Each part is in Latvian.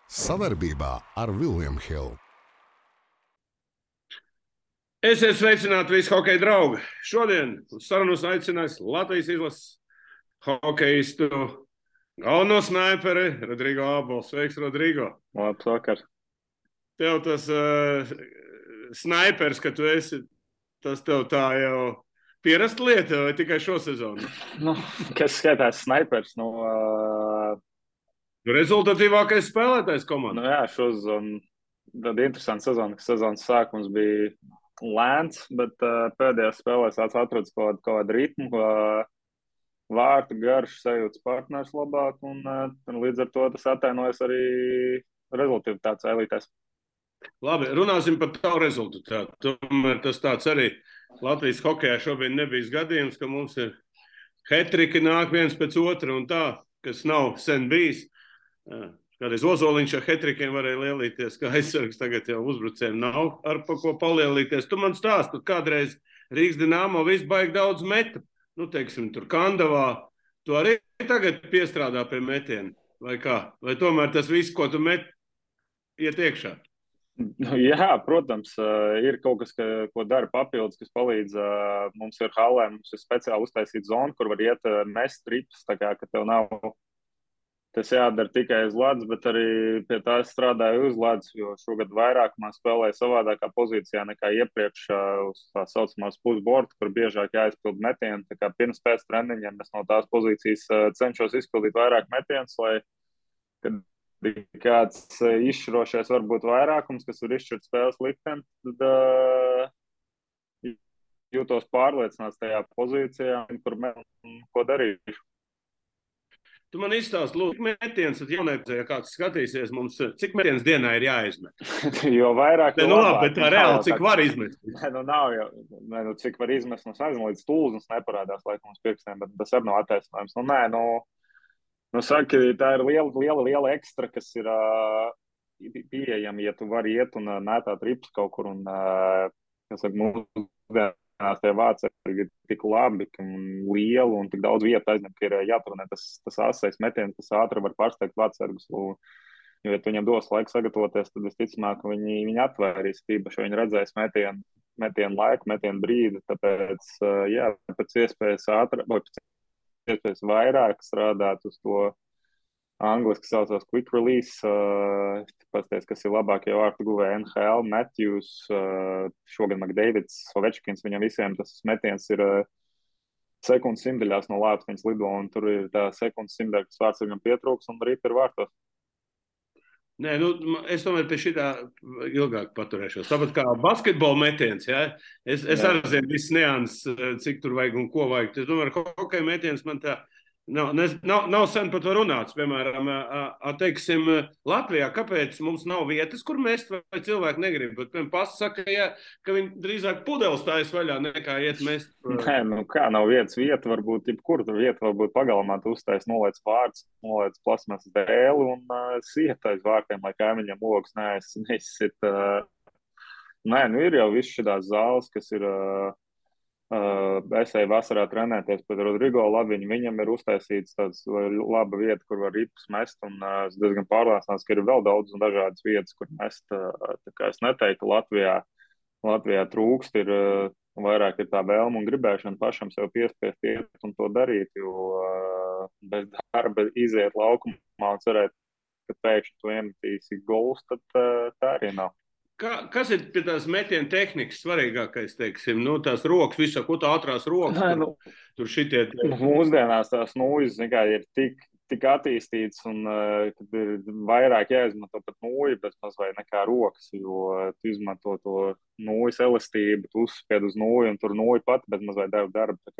Savarbībā ar William Hill. Esiet sveicināti visi hokeja draugi. Šodien uz sarunu aicinājis Latvijas izlases hokejistu galveno snaiperi Rodrigo Abols. Sveiks, Rodrigo. Labs vakar. Tev tas snaipers, ka tu esi, tas tev tā jau pierasta lieta vai tikai šo sezonu? Kas skaitās snaipers? Rezultatīvākais spēlētājs komandā. Jā, šosezonu tad interesanta sezona, ka sezonas sākums bija lēns, bet pēdējās spēlēs atrodas kaut kādu ritmu, vārtu garš, sajūtas partners labāk, un līdz ar to tas atainojas arī rezultatīvitātes elitēs. Labi, runāsim par tavu rezultātu. Tomēr tas tāds arī Latvijas hokejā šobrīd nebija gadījums, ka mums ir hetriki nāk viens pēc otra un tā, kas nav sen bijis. Kādreiz Ozoliņš ar hetrikiem varēja lielīties, kā aizsargs, tagad jau uzbrucējiem nav ar pa ko palielīties. Tu man stāsti, kādreiz Rīgas Dinamo viss baigi daudz meta. Teiksim, tur Kandavā, tu arī tagad piestrādā pie metiena, vai kā? Vai tomēr tas viss, ko tu met, iet iekšā? Jā, protams, ir kaut kas, ko dara papildus, kas palīdz. Mums ir halē, mums ir speciāli uztaisīta zona, kur var iet mest trips, tā kā, ka tev nav tas jādara tikai uz ledus, bet arī pie tā es strādāju uz ledus, jo šogad vairākumā spēlēju savādākā pozīcijā nekā iepriekš uz tā saucamās pusborta, kur biežāk jāizpild metieni. Tā kā pirms pēc treniņiem es no tās pozīcijas cenšos izpildīt vairāk metienus, lai, kad kāds izšķirošais varbūt vairākums, kas var izšķirt spēles likteni, tad jūtos pārliecināts tajā pozīcijā, kur ko darīšu. Tu man izstāsti, lūdzu, cik metiens, tad jaunajā, ja kāds skatīsies, mums cik metiens dienā ir jāizmet? Jo vairāk, jo labāk. Labi, bet tā reāli, cik var izmest? Nav jau, cik var izmest, līdz stūznes neparādās laikam uz pirkstiem, bet tas arī nav attaisnojums. Saka, tā ir liela ekstra, kas ir pieejama, ja tu vari iet un mētāt rips kaut kur un, kas saka, mūsdienās tie vārdsargi ir tik labi un lieli un tik daudz vietu aizņem, ka ir jāturnē tas asais metiens, kas ātri var pārsteigt vārdsargus. Jo, ja tu viņam dos laiku sagatavoties, tad visticamāk, ka viņi atvērīs tīpaši, viņi redzēs metienu laiku, metienu brīdi. Tāpēc, jā, pēc iespējas ātri, vai pēc iespējas vairāk strādāt uz to angliski saucās quick release, pasties, kas ir labākie vārtu guvēji NHL, Matthews, šogad McDavids, Ovečkins, viņam visiem tas metiens ir sekundes simtaļās no lāpstiņas lido, un tur ir tā sekundes simtaļa, kas vārds viņam pietrūks, un rīt ir vārtos. Nē, es tomēr pie šitā ilgāk paturēšos. Tāpat kā basketbola metiens, ja? Es arī zinu visas nianses, cik tur vajag un ko vajag. Es domāju, hokeja metiens man tā nav sen par to runāts. Piemēram, teiksim, Latvijā, kāpēc mums nav vietas, kur mest, vai cilvēki negrib? Bet, piemēram, pasta saka, ka viņi drīzāk pudeles tājas vaļā nekā iet mest. Nē, kā nav vietas, vieta varbūt jebkur, tur vieta varbūt pagalmā, tu uztais nolēc vārds, nolēc plasmas dēli un siet aiz vārtiem, lai kaimiņam logs neizsit. Nē, ir jau viss šitās zāles, kas ir... Es eju vasarā trenēties pēc Rodrigo Labiņa. Viņam ir uztaisīts tāds laba vieta, kur var ripus mest, un es diezgan pārliecināts, ka ir vēl daudz un dažādas vietas, kur mest. Tā kā es neteiktu, Latvijā trūkst, ir vairāk ir tā vēlme un gribēšana pašam sev piespiest iet un to darīt, jo bez darba iziet laukumā un cerēt, ka pēkšņi tu iemetīsi golus, tad tā arī nav. Kas ir pie tās metiena tehnikas svarīgākais, teiksim, tās rokas, visā, ko tā ātrās rokas? Tur šitie... Mūsdienās tās nūjas ir tik attīstīts un kad ir vairāk jāizmanto pat nūju, bet mazliet nekā rokas, jo tu izmanto to nūjas elastību, tu uzspied uz nūju un tur nūja pati, bet mazliet darba. Tā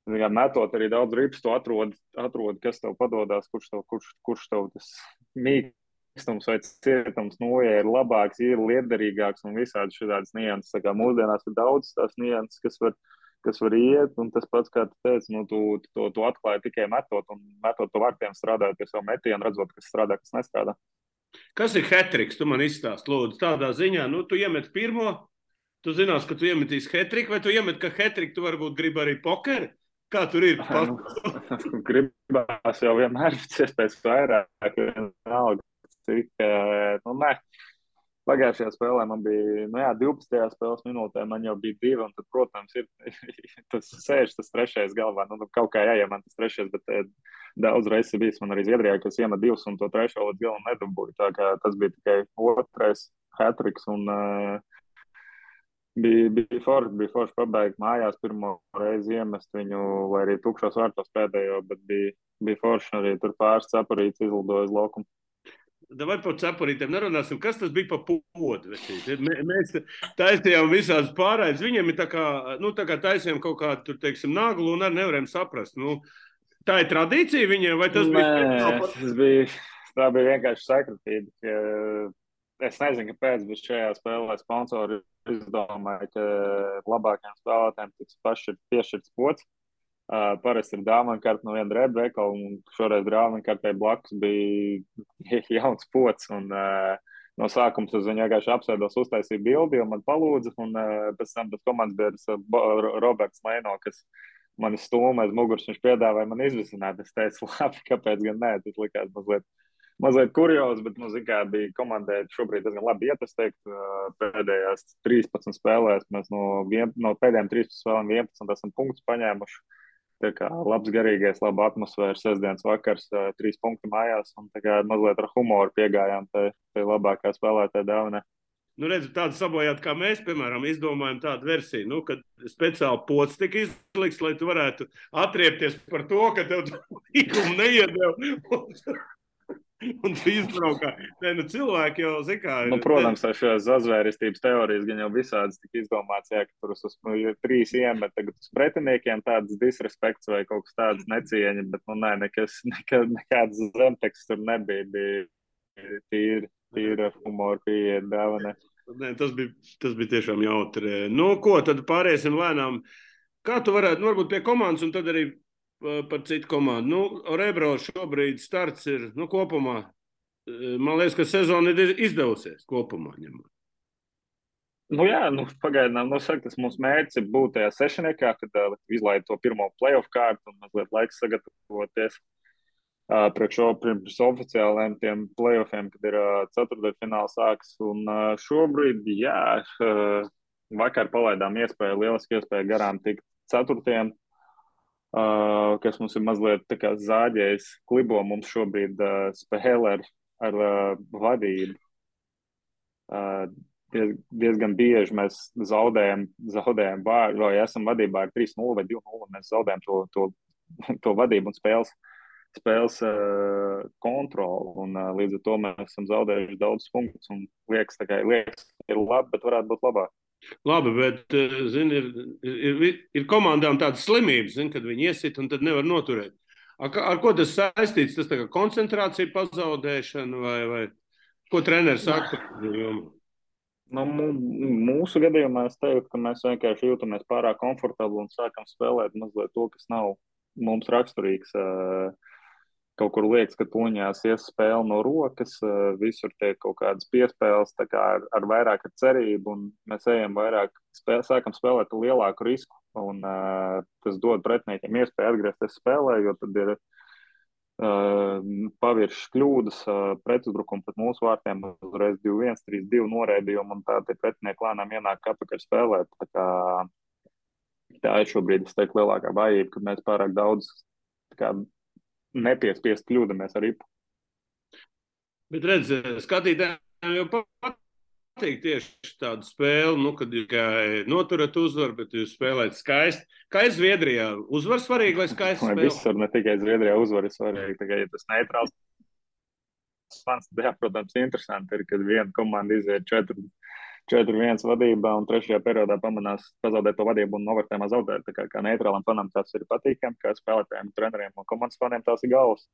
kā metot arī daudz rips, tu atrod, kas tev padodās, kurš tev tas mīkstums vai cietums nūja ir labāks, ir lietderīgāks un visādi šādas nianses. Tā kā mūsdienās ir daudz tās nianses, kas var iet, un tas pats, kā tu teici, tu atklāji tikai metot pa vārtiem strādājot pie savu metienu, redzot, kas strādā, kas nestrādā. Kas ir hetriks? Tu man izstāsti, lūdzu, tādā ziņā, tu iemet pirmo, tu zinās, ka tu iemetīs hetriku, vai tu iemet, ka hetriku tu varbūt gribi arī pokeri? Kā tur ir? Gribās jau vienmēr pēc iespējas vairāk, vienalga, cik, nu, ne. Pagājušajā spēlē man bija, 12. spēles minūtē man jau bija 2, un tad, protams, ir tas trešais galvā. Nu, kaut kā jāiem man tas trešais, bet daudz reizes bijis man arī Zviedrijā, kas iemet 2 un to trešo līdz galam nedabūja. Tā kā tas bija tikai otrais hat-tricks, un bija forši pabeigt mājās pirmo reizi iemest viņu, vai arī tukšos vārtos pēdējo, bet bija forši arī tur pāris cepurītes izlidoja uz laukumu. Vai par cepurītēm nerunāsim, kas tas bija pa podu? Mēs taisījām visādas pārraides. Viņiem ir tā kā taisījām kaut kādu, tur, teiksim, naglu un arī nevarējām saprast. Nu, tā ir tradīcija viņiem, vai tas bija? Tā bija vienkārši sakritība. Es nezinu, kāpēc, bet šajā spēlē sponsori izdomāja, ka labākajiem spēlētājiem tiks piešķirts pods. Parasti ir dāvana no viena drēbju veikala, un šoreiz dāvana kartē blakus bija jauns pods. Un, no sākuma es viņu vienkārši apsēdos, uztaisīju bildi, jo man palūdza, un pēc tam tas komandas biedrs Roberts Leino, kas mani stūma aiz muguras, viņš piedāvāja man izvisināt. Es teicu, labi, kāpēc gan nē, tas likās mazliet kuriozi, bet kā bija komandai šobrīd diezgan labi iet, es teiktu, pēdējās 13 spēlēs mēs no pēdējām 13 spēlēm 11 esam punktus paņēmuši. Tā kā labs garīgais, laba atmosfēra, sestdienas vakars, 3 punkti mājās, un tā kā mazliet ar humoru piegājām tai labākā spēlētāja dāvanai. Nu, redzu, tādu sabojāt, kā mēs, piemēram, izdomājam tādu versiju, kad speciāli pods tika izlikts, lai tu varētu atriepties par to, ka tev līgumu neiedeva. Un tu izbraukā. Cilvēki jau zina, protams, šīs zazvērestības teorijas gan jau visādas tika izdomāts, ka tur uz 3 iemet, tagad uz pretiniekiem tāds disrespekts vai kaut kas tāds necieņa, bet, nekāds zemteksts tur nebija, bija tīri ar humoru pieeja dāvanai. Tas bija tiešām jautri. Nu, ko, tad pāriesim lēnām. Kā tu varētu, varbūt pie komandas un tad arī par citu komandu. Rebro šobrīd starts ir, kopumā, man liekas, ka sezona ir izdevusies kopumā ņemot. Pagaidām, tas mūsu mērķis ir būt tajā sešniekā, kad izlaid to pirmo playoff kārtu un mazliet laiks sagatavoties priekš oficiāliem tiem playoffiem, kad ir ceturtdaļfināls sāks. Un šobrīd, vakar palaidām lieliski iespēju garām tikt ceturtiem, kas mums ir mazliet tā kā zāģējis klibo, mums šobrīd spēlē ar vadību. Diezgan bieži mēs zaudējam vārdu, vai esam vadībā ar 3-0 vai 2-0, un mēs zaudējam to vadību un spēles kontroli, un līdz ar to mēs esam zaudējuši daudz punktus, un liekas, ir labi, bet varētu būt labāk. Labi, bet, ir komandām tādas slimības, kad viņi iesit un tad nevar noturēt. Ar ko tas saistīts? Tas tā kā koncentrācija pazaudēšana vai ko treneris saka? Mūsu gadījumā es teiktu, ka mēs vienkārši jūtamies pārāk komfortabli un sākam spēlēt mazliet to, kas nav mums raksturīgs. Kaut kur liekas, ka tuņās ies spēle no rokas, visur tiek kaut kādas piespēles, tā kā ar vairāk ar cerību, un mēs ejam vairāk, sākam spēlēt lielāku risku, un tas dod pretiniekiem iespēju atgriezties spēlē, jo tad ir paviršas kļūdas, pretuzbrukumi pret mūsu vārtiem, uzreiz 2-1, 3-2 noraidījumi, un tā tie pretinieki lēnām ienāk atpakaļ spēlēt. Tā ir šobrīd, es teiktu, lielākā vājība, ka mēs pārāk daudz nepiespiest kļūdamies ar ripu. Bet redz, skatītājiem jau patīk tieši tādu spēli, kad jūs noturat uzvaru, bet jūs spēlējat skaisti. Kā ir Zviedrijā? Uzvar svarīgi vai skaisti spēle? Visur, ne tikai Zviedrijā uzvar ir svarīgi, tikai ja tas neitrāls fans, jā, protams, interesanti ir, kad viena komanda iziet 4-1 vadībā un trešajā periodā pamanās pazaudēt to vadību un novērtējumā zaudēt. Tā kā neitrālam fanam tas ir patīkami, kā spēlētājiem, treneriem un komandas faniem tās ir galvas.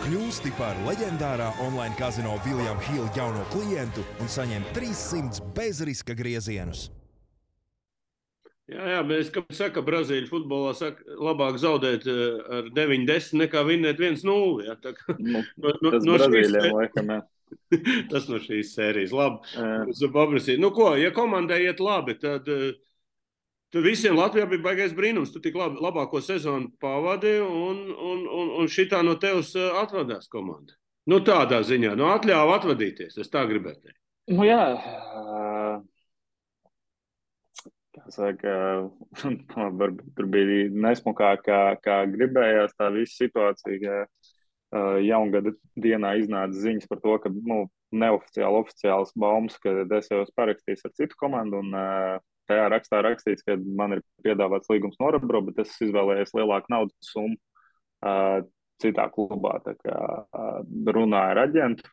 Kļūsti par leģendārā online kazino William Hill jauno klientu un saņem 300 bezriska griezienus. Jā, mēs, kā saka, Brazīļu futbolā labāk zaudēt ar 9-10 nekā vinnēt 1-0. Tas Brazīļiem laikam, jā. Tas no šīs sērijas. Labi. Nu ko, ja komandai iet labi, tad visiem Latvijā bija baigais brīnums. Tu tik labāko sezonu pavadi un šitā no tevis atvadās komanda. Nu tādā ziņā, atļāva atvadīties, es tā gribētu teikt. Nu jā, kā saka, varbūt tur bija nesmukāk, kā gribējās tā visa situācija. Jaungada dienā iznāca ziņas par to, ka neoficiāli, oficiāls baumas, ka es jau esmu parakstījis ar citu komandu, un tajā rakstā rakstīts, ka man ir piedāvāts līgums no Orebro, bet es izvēlējos lielāku naudas summu citā klubā. Tā kā runāju ar aģentu.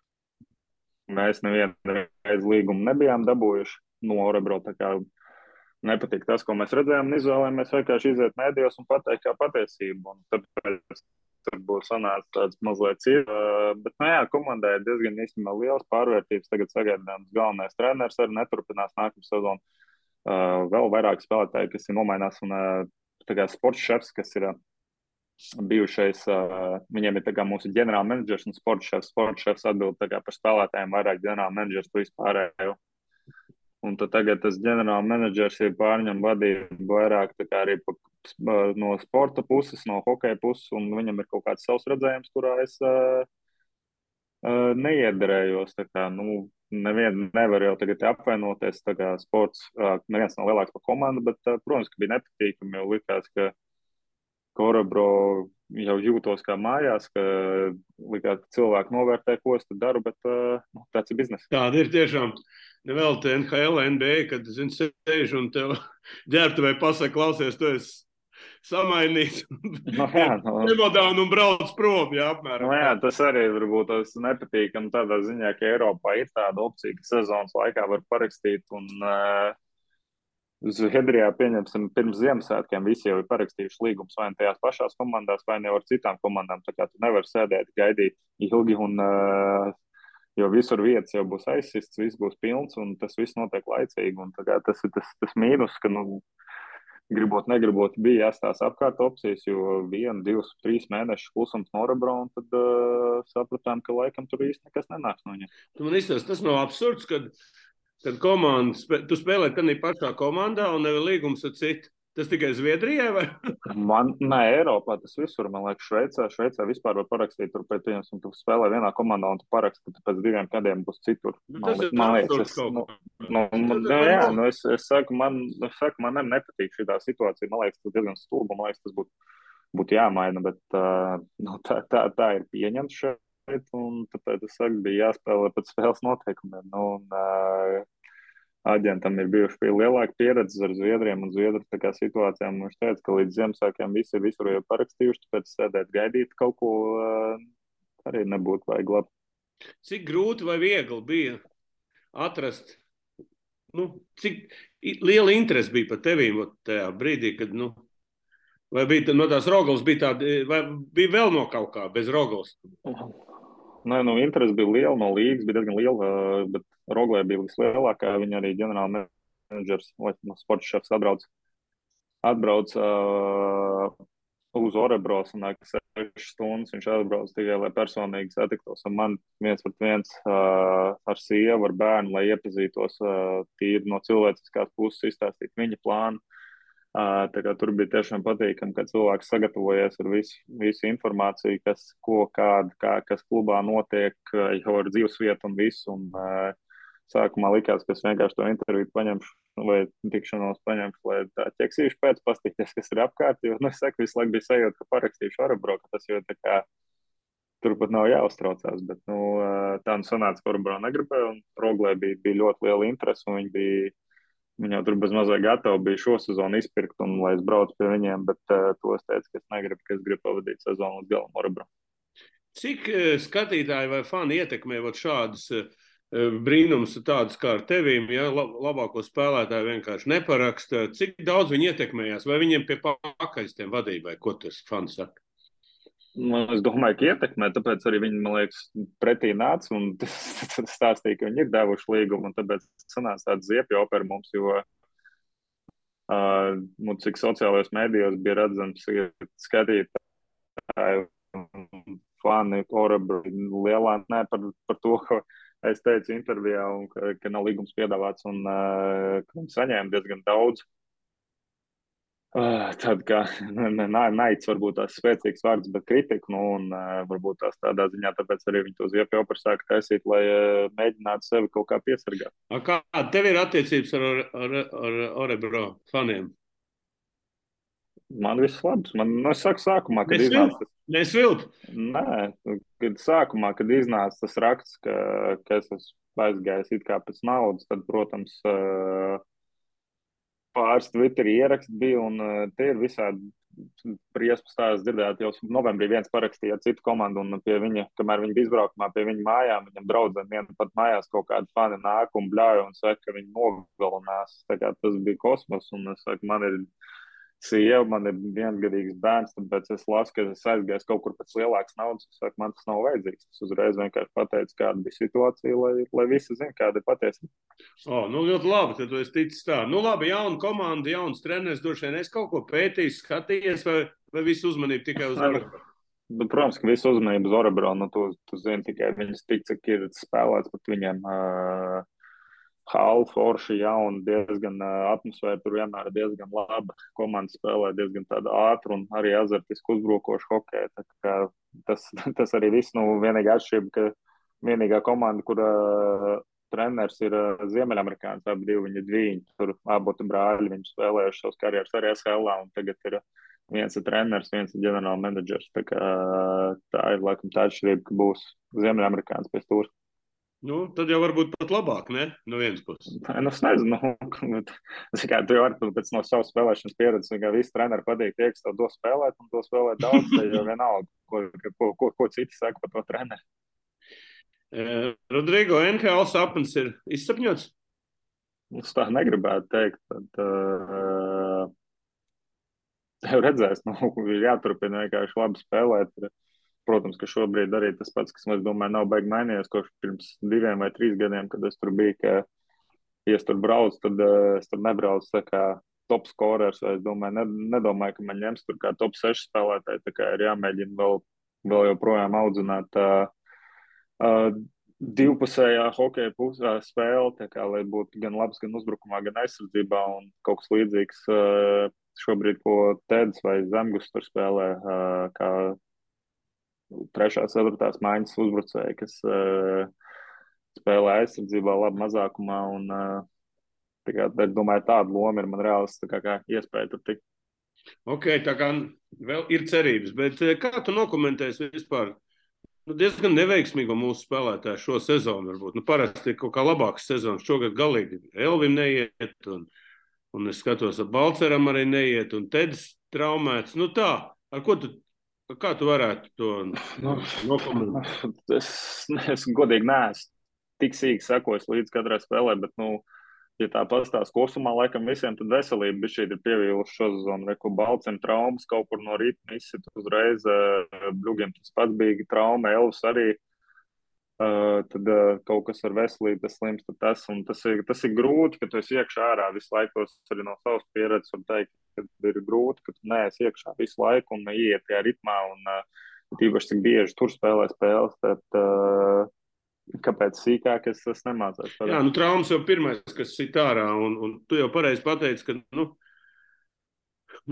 Mēs nevienu reizi līgumu nebijām dabūjuši no Orebro, tā kā nepatīk tas, ko mēs redzējām, un izvēlējāmies vienkārši iziet mēdījos un pateikt kā patiesību. Un tāpēc tur būs sanācis tāds mazliet cīņa. Bet, komandai ir diezgan īstenībā liels pārvērtības. Tagad sagaidāms galvenais treneris arī neturpinās nākamā sezonu. Vēl vairāk spēlētāji, kas ir nomainās, un tā kā sports šefs, kas ir bijušais, viņiem ir tā kā mūsu ģenerāla menedžers un sports šefs. Sports šefs atbild tā kā par spēlētājiem, vairāk ģenerāla menedžers tu vispārējo. Un tad tagad tas ģenerāla menedžers ir pārņem vadību vairāk tā kā arī no sporta puses, no hokeja puses, un viņam ir kaut kāds savs redzējums, kurā es neiederējos. Tā kā, nevienu nevar jau tagad apvainoties, tā kā sports, neviens nav lielāks par komandu, bet, protams, ka bija nepatīkami, jo likās, ka Orebro jau jūtos kā mājās, ka likās, ka cilvēki novērtē, ko es tad daru, bet tāds ir biznes. Tāda ir tiešām. Nevēl te NHL, NBA, kad, sēž un tev ģērbtuvē pasaka, klausies, tu esi samainīts. Nemodāni un brauc prom, apmēram. Tas arī varbūt tas nepatīkam tādā ziņā, ka Eiropā ir tāda opcija, ka sezonas laikā var parakstīt, un Zviedrijā, pieņemsim, pirms Ziemassvētkiem visi jau ir parakstījuši līgumus vai ne tajās pašās komandās, vai ne ar citām komandām. Tā kā tu nevari sēdēt, gaidīt ilgi, un jo visur vietas jau būs aizsists, viss būs pilns, un tas viss notiek laicīgi. Un tas ir tas mīnus, ka, gribot, negribot, bija jāstās apkārt opcijas, jo 1, 2, 3 mēnešu klusums no Orebro, un tad sapratām, ka laikam tur īsti nekas nenāks no viņiem. Man izstāst, tas nav absurds, kad komanda, tu spēlē tādā pašā komandā un nevar līgums ar citu. Tas tikai Zviedrijai vai? Nē, Eiropā tas visur, man liekas, Šveicē vispār var parakstīt, tur pēc viņas, un tu spēlē vienā komandā, un tu paraksti, ka tu pēc 2 gadiem būs citur. Man liekas, es saku, man nepatīk šī situācija, man liekas, tas diezgan stulba, man liekas, tas būtu jāmaina, bet tā ir pieņemts šeit, un tāpēc es saku, bija jāspēlē pēc spēles noteikumiem, aģentam ir bijuši lielāka pieredze ar Zviedriem un Zviedru tā kā situācijām. Viņš teica, ka līdz Ziemassvētkiem visi ir visur jau parakstījuši, tāpēc sēdēt gaidīt kaut ko arī nebūtu vajag labi. Cik grūti vai viegli bija atrast, cik liela interese bija par tevīm tajā brīdī, kad, vai bija no tās Rogals, bija tāda, vai bija vēl no kaut kā bez Rogals? Nē, interese bija liela, no līgas bija diezgan liela, bet Roglē bija vislielākā. Viņa arī ģenerāla menedžers, sports šefs atbrauc uz Orebro, sanāk 6 stundas. Viņš atbrauc tikai, lai personīgi satiktos ar mani 1-1 ar sievu, ar bērnu, lai iepazītos tīri no cilvēciskās puses, izstāstīt viņa plānu. Tā kā tur bija tiešām patīkami, ka cilvēks sagatavojies ar visu informāciju, kas klubā notiek, jau ar dzīvesvietu un visu. Un, sākumā likās, ka es vienkārši to interviju paņemšu vai tikšanos paņemšu, lai tā ķeksīšu pēc pastīties, kas ir apkārt. Jo, es saku, visu laiku bija sajūta, ka parakstīšu Orebro, ka tas jau tā kā turpat nav jāuztraucās. Bet tā sanāca, ka Orebro negribēja, un Roglē bija ļoti liela interese, un viņi jau tur bez mazai gatavi bija šo sezonu izpirkt, un lai es braucu pie viņiem, bet to es teicu, ka es gribu pavadīt sezonu līdz galam Orebro. Cik skatītāji vai fani ietekmē šādas brīnums tādus kā ar tevīm, ja labāko spēlētāju vienkārši neparaksta? Cik daudz viņi ietekmējās? Vai viņiem pie pakaļs tiem vadībai? Ko tas fani saka? Es domāju, ka ietekmē, tāpēc arī viņi, man liekas, pretī nāca un stāstīja, ka viņi ir devuši līgumu, un tāpēc sanāca tāds ziepju opera mums, jo cik sociālajos mēdījos bija redzams skatītāji fani Orebro lielā, par to, ka es teicu intervijā, un, ka nav līgums piedāvāts, un ka viņi saņēma diezgan daudz. Tad, kā naids varbūt tās spēcīgs vārds, bet kritika, nu, un varbūt tās tādā ziņā, tāpēc arī viņi to ziepju operu sāka taisīt, lai mēģinātu sevi kaut kā piesargāt. Kā tev ir attiecības ar Orebro faniem? Man viss labs. Es saku sākumā, kad iznāca. Nesvilp? Nē, kad sākumā, kad iznāca tas raksts, ka es esmu aizgājis it kā pēc naudas, tad, protams, pāris Twitterī ieraksti bija, un tie ir visādi briesmas stāsts dzirdēt. Jau novembrī viens parakstīja citu komandu, un pie viņa, kamēr viņi bija izbraukumā pie viņa mājām, viņam draudzēm viena pat mājās kaut kādi fani nāk un bļauj un saka, ka viņi nogalinās. Tā kā tas bija kosmos, un es saku, man ir sieva, man ir viensgadīgs bērns, tāpēc es lasu, ka es aizgāju kaut kur pēc lielākas naudas. Es saku, man tas nav vajadzīgs. Es uzreiz vienkārši pateicu, kāda bija situācija, lai visi zina, kāda ir patiesība. Nu ļoti labi, tad tu esi ticis tā. Nu labi, jauna komanda, jauns treneris, droši vien es kaut ko pētījis, skatījies, vai visu uzmanību tikai uz Orebro? Protams, ka visu uzmanību uz Orebro, nu tu zini tikai viņas tik, cik ir spēlēts pat viņiem. Hall, forši, jauni, diezgan atmosfēra tur vienmēr diezgan laba. Komanda spēlē diezgan tādu ātru un arī azartisku uzbrukošu hokeju. Tā kā tas arī viss, nu, vienīgā atšķirība, ka vienīgā komanda, kura treneris ir Ziemeļamerikāns, abi divi viņi dviņi, tur aboti brāļi, viņi spēlējuši savas karjeras arī SHL, un tagad ir viens ir treneris, viens ir ģenerāla menedžers. Tā kā tā ir laikam tā atšķirība, ka būs Ziemeļamerikāns pēc tūras. Nu, tad jau varbūt pat labāk, ne? No vienas puses. Es nezinu, tu jau vari pēc no savas spēlēšanas pieredzes, ka visi treneri patīk tie, kas tev do spēlēt, un to spēlēt daudz, tad jau vienalga, ko citi saka par to treneri. Rodrigo, NHL sapnis ir izsapņots? Es tā negribētu teikt, tad redzēs, ir jāturpina vienkārši labi spēlēt. Protams, ka šobrīd arī tas pats, kas, es domāju, nav baigi mainījies, kopš pirms 2 vai 3 gadiem, kad es tur biju, ka, ja es tur braucu, tad es tur nebraucu tā kā top scorers, vai es domāju, nedomāju, ka man ņems tur kā top 6 spēlētāji, tā kā ir jāmēģina vēl joprojām audzināt divpusējā hokeja spēle, tā kā, lai būtu gan labs, gan uzbrukumā, gan aizsardzībā, un kaut kas līdzīgs šobrīd, ko Teds vai Zemgus tur spēlē, kā 3., 4. maiņas uzbrucēji, kas spēlē aizsardzībā labi mazākumā, un es domāju, tāda loma ir man reāls kā iespēja tur tikt. Ok, tā kā vēl ir cerības, bet kā tu nokomentēsi vispār diezgan neveiksmīgo mūsu spēlētāju šo sezonu varbūt? Parasti ir kaut kā labāks sezonas, šogad galīgi Elvim neiet, un es skatos, ar Balceram arī neiet, un Teds traumēts. Tā, kā tu varētu to nokomentēt? Es godīgi neesmu tik sīki sekojis līdz katrai spēlē, bet, ja tā pastāst kopumā, laikam visiem tad veselība bija šī ir pievīluši šo sezonu. Reku Balcem traumas kaut kur no rīta izsit uzreiz, Bļugiem tas pats bija trauma, Elvis arī, tad kaut kas ar veselību, tas slims, tas ir grūti, ka tu esi iekšā ārā visu laiku, arī no savas pieredzes var teikt, ka ir grūti, ka tu neesi iekšā visu laiku un ieiet tajā ritmā, un tīpaši cik bieži tur spēlē spēles, tad kāpēc sīkāk es nemācās. Jā, traumas jau pirmais, kas sit ārā, un tu jau pareizi pateici, ka,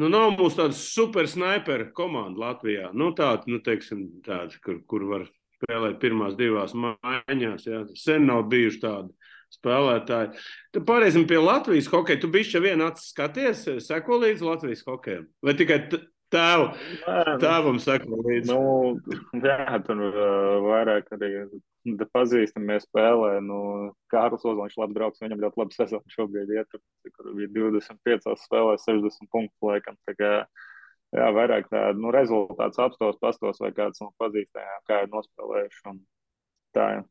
nav mūsu tāda super sniper komanda Latvijā, tāda, kur var spēlēt pirmās 2 maiņās, jā, sen nav bijuši tādi spēlētāji. Tad pārēsim pie Latvijas hokeja. Tu bišķi vien skaties, seko līdz Latvijas hokejam? Vai tikai tēvam seko līdz? Jā, tur vairāk arī pazīstamies spēlē. Kārlis Ozoliņš labs draugs, viņam ļoti labi sezonu šobrīd iet, kur bija 25 spēlē, 60 punktu laikam. Tā kā, jā, vairāk tādu rezultāts apstos, pastos vai kāds no pazīstajām, kā ir nospēlējuši. Un tā, jā.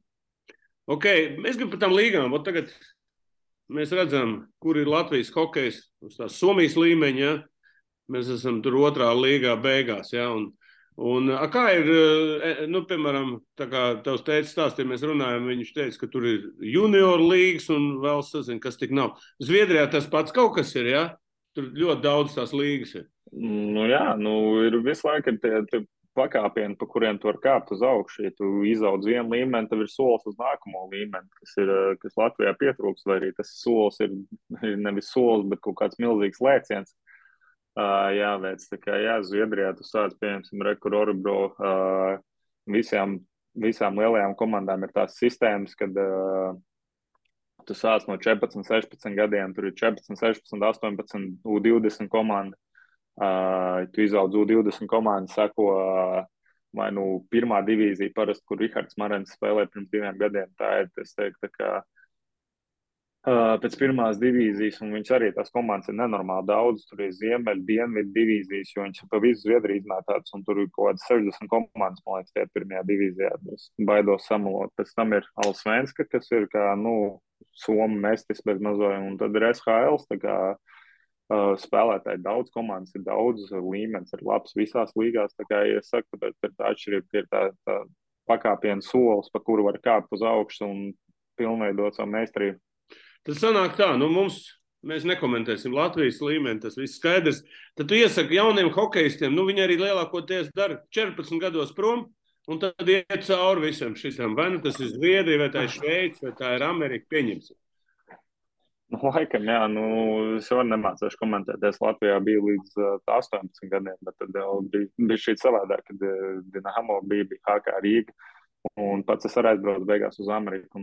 Ok, mēs gribam par tām līgām. Tagad mēs redzam, kur ir Latvijas hokejs uz tās Somijas līmeņa. Ja? Mēs esam tur 2. līgā beigās. Ja? Un kā ir, piemēram, tā kā tavs teicis stāstīja, mēs runājam, viņš teica, ka tur ir junior līgas un vēl sazin, kas tik nav. Zviedrijā tas pats kaut kas ir, ja? Tur ļoti daudz tās līgas ir. Jā, ir visu laiku tie pakāpieni, pa kuriem tu vari kāpt uz augšu. Ja tu izaudz vienu līmeni, tad ir solis uz nākamo līmeni, kas Latvijā pietrūks, vai arī tas solis ir nevis solis, bet kaut kāds milzīgs lēciens. Jāveic. Tā kā Zviedrijā tu sāc, piemēram, Rekur Orebro, visām lielajām komandām ir tās sistēmas, kad tu sāc no 14, 16 gadiem, tur ir 14, 16, 18, U20 komanda. Tu izaudz U20 komandu, sako vai nu pirmā divīzija, parasti, kur Rihards Marens spēlē pirms 2 gadiem. Tā ir, es teiktu, tā kā pēc pirmās divīzijas, un viņas arī tās komandas ir nenormāli daudz. Tur ir ziemeļu, dienvidu divīzijas, jo viņas pa visu Zviedriju izmētātas, un tur ir kaut kādas 60 komandas, man liekas, tie pirmajā divīzijā. Es baidos samalot. Pēc tam ir Allsvenska, kas ir kā, Somu mestis bez mazoja, un tad ir SHL, tā kā spēlētāji daudz, komandas ir daudz, līmenis ir labs visās līgās. Tā kā, ja es saku, tad ir tā atšķirība, ka ir tā pakāpiena solis, pa kuru var kāpt uz augšu un pilnveidot savu meistarību. Tas sanāk tā, mēs nekomentēsim Latvijas līmeni, tas viss skaidrs. Tad tu iesaki jauniem hokejistiem, viņi arī lielākoties dara 14 gados prom, un tad iet cauri visam šitam. Vai tas ir Zviedrija, vai tā ir Šveice, vai tā ir Amerika, pieņemsim. Laikam, jā, es jau nemācīšu komentēt. Es Latvijā biju līdz 18 gadiem, bet tad jau bija šī savādāk, kad Dinamo bija HK Rīga. Un pats es arī aizbraucu beigās uz Ameriku.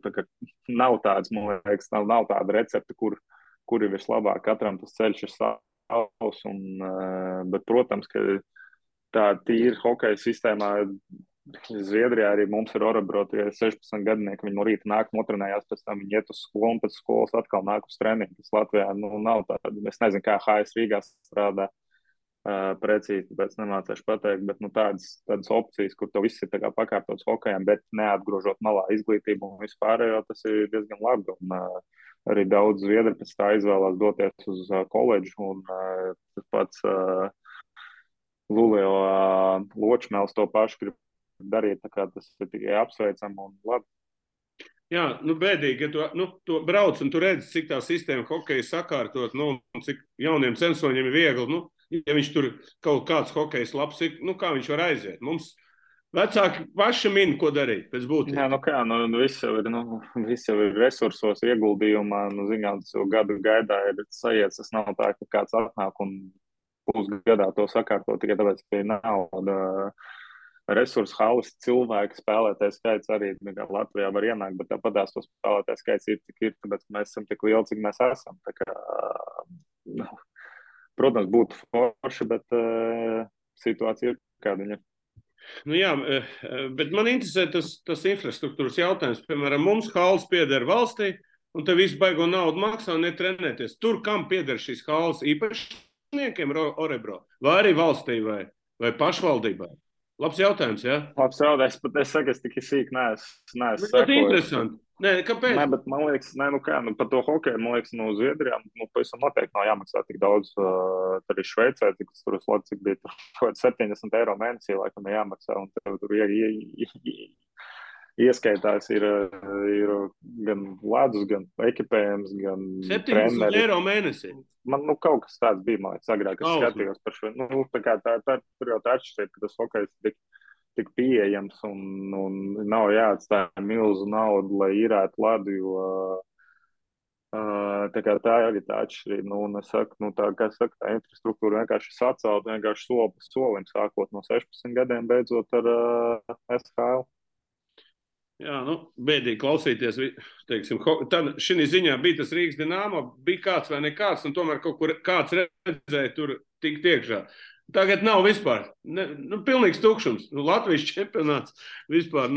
Tā nav tāds, man liekas, nav tāda recepte, kur ir vislabāk. Katram tas ceļš ir savs. Bet, protams, ka tā tīra hokeja sistēmā Zviedrijā arī mums ir Orebro, tie 16 gadinieki. Viņi no rīta nāk, notrenējās, pēc tam viņi iet uz skolu, un pēc skolas atkal nāk uz treniņu. Tas Latvijā nav tāda. Es nezinu, kā HS Rīgā strādā. Precīzi, tāpēc nemācīšu pateikt, bet tādas opcijas, kur tev viss ir tā kā pakāptots hokejam, bet neatgrožot malā izglītību un vispārējo, tas ir diezgan labi. Un arī daudz zviedri pēc tā izvēlās doties uz koledžu, un tas pats Lulio Ločmēls to pašu grib darīt, tā kā tas ir tikai apsveicam un labi. Jā, bēdīgi, ja tu brauc un tu redzi, cik tā sistēma hokeja sakārtot, un cik jauniem censoņiem ir viegli, ja viņš tur kaut kāds hokejs labs ir, kā viņš var aiziet. Mums vecāki paši min, ko darīt pēc būtības. Jā, viss jau ir resursos, ieguldījumā, zinām, tas jau gadu gaidā ir sajiets, tas nav tā, ka kāds atnāk un pusgadā to sakārtot, tikai tāpēc, ka ir nauda. Resursu halas cilvēku spēlētāju skaits arī Latvijā var ienākt, bet tāpatās to spēlētāju skaits ir, cik ir, tāpēc mēs esam tik lieli, cik mēs esam. Tā kā, protams, būtu forši, bet situācija ir kāda viņa. Jā, bet man interesē tas infrastruktūras jautājums. Piemēram, mums halas pieder valstī, un te visu baigo naudu maksā un netrenēties. Tur, kam pieder šīs halas, īpašniekiem Orebro, vai arī valstī, vai pašvaldībai? Labs jautājums, jā? Labs jautājums, bet es saku, es tik sīk neesmu sekojis. Tas ir interesanti. Nē, kāpēc? Nē, bet man liekas, par to hokeju, man liekas, Zviedrijā, pavisam noteikti nav jāmaksā tik daudz. Arī Šveicē, cik bija tur 70 eiro mēnesī, laikam jāmaksā, un tur ieskaitās ir gan ledus, gan ekipējums, gan 70 eiro mēnesī? Man kaut kas tāds bija, man liekas, agrāk, es skatījos par šo. Tā kā tur jau tā atšķirība, ka tas hokejs tik pieejams un nav jāatstāja milzu naudu, lai īrētu ledu, jo tā kā tā arī tā atšķirība. Un es saku, tā infrastruktūra vienkārši sacelt, vienkārši soli pa solim, sākot no 16 gadiem, beidzot ar SHL. Jā, bēdīgi klausīties, teiksim, tad šī ziņā bija tas Rīgas Dinamo, bija kāds vai nekāds, un tomēr kaut kur kāds redzēja tur tikt iekšā. Tagad nav vispār, pilnīgs tukšums. Latvijas čempionāts vispār,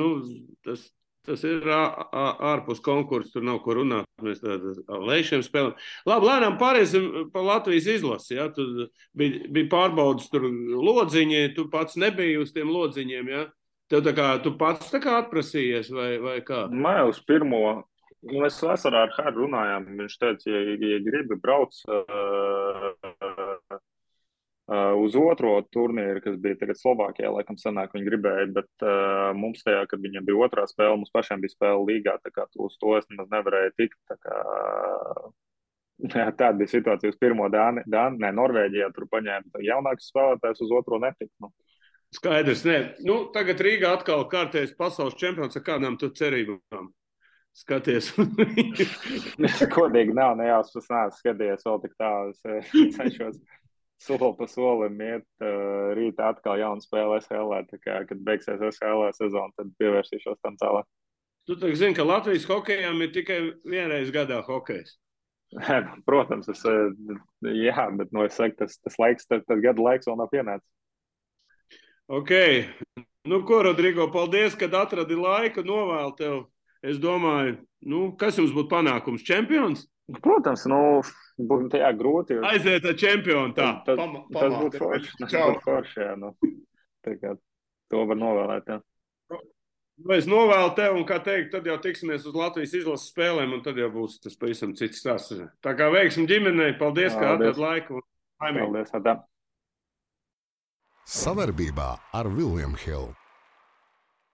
tas ir ārpus konkursu, tur nav ko runāt, mēs ar lēšiem spēlēm. Labi, lēnām pāriesim pa Latvijas izlasi, jā, tu bija pārbaudas tur lodziņi, tu pats nebija uz tiem lodziņiem, jā? Tev tu pats atprasījies vai kā? Nē, uz pirmo. Mēs vasarā ar Hardu runājām. Viņš teica, ja gribi brauc uz otro turnīru, kas bija tagad Slovākijā, laikam sanāk, viņi gribēja, bet mums tajā, kad viņiem bija otrā spēle, mums pašiem bija spēle līgā, tā kā uz to es nemaz nevarēju tikt. Tāda bija situācija uz pirmo Norvēģijā, tur paņēma jaunākus spēlētājus, uz otro netikt. Skaidrs, nē. Nu, tagad Rīgā atkal kārtējs pasaules čempions ar kādām tu cerībām. Skaties. Kodīgi nav, nejāspas nāc skaties vēl tik tālu. Es cenšos soli pa solim iet. Rīt atkal jauna spēle SHL. Tā kā, kad beigsies SHL sezona, tad pievērsīšos tam tālāk. Tu tā zini, ka Latvijas hokejām ir tikai vienreiz gadā hokejs. Protams, jā, bet es saku, tas laiks, tas gada laiks vēl nav pienācis. Ok. Nu, ko, Rodrigo, paldies, kad atradi laiku, novēlu tev. Es domāju, kas jums būtu panākums? Čempions? Protams, būtu tajā grūti. Aiziet ar čempionu, tā. Tas būtu forši. Tas būtu forši, jā. Tā kā to var novēlēt, jā. Es novēlu tev, un, kā teikt, tad jau tiksimies uz Latvijas izlases spēlēm, un tad jau būs tas pavisam cits stāsts. Tā kā veiksim ģimenei, paldies, ka atradi laiku. Paldies, Adam. Savarbībā ar William Hill.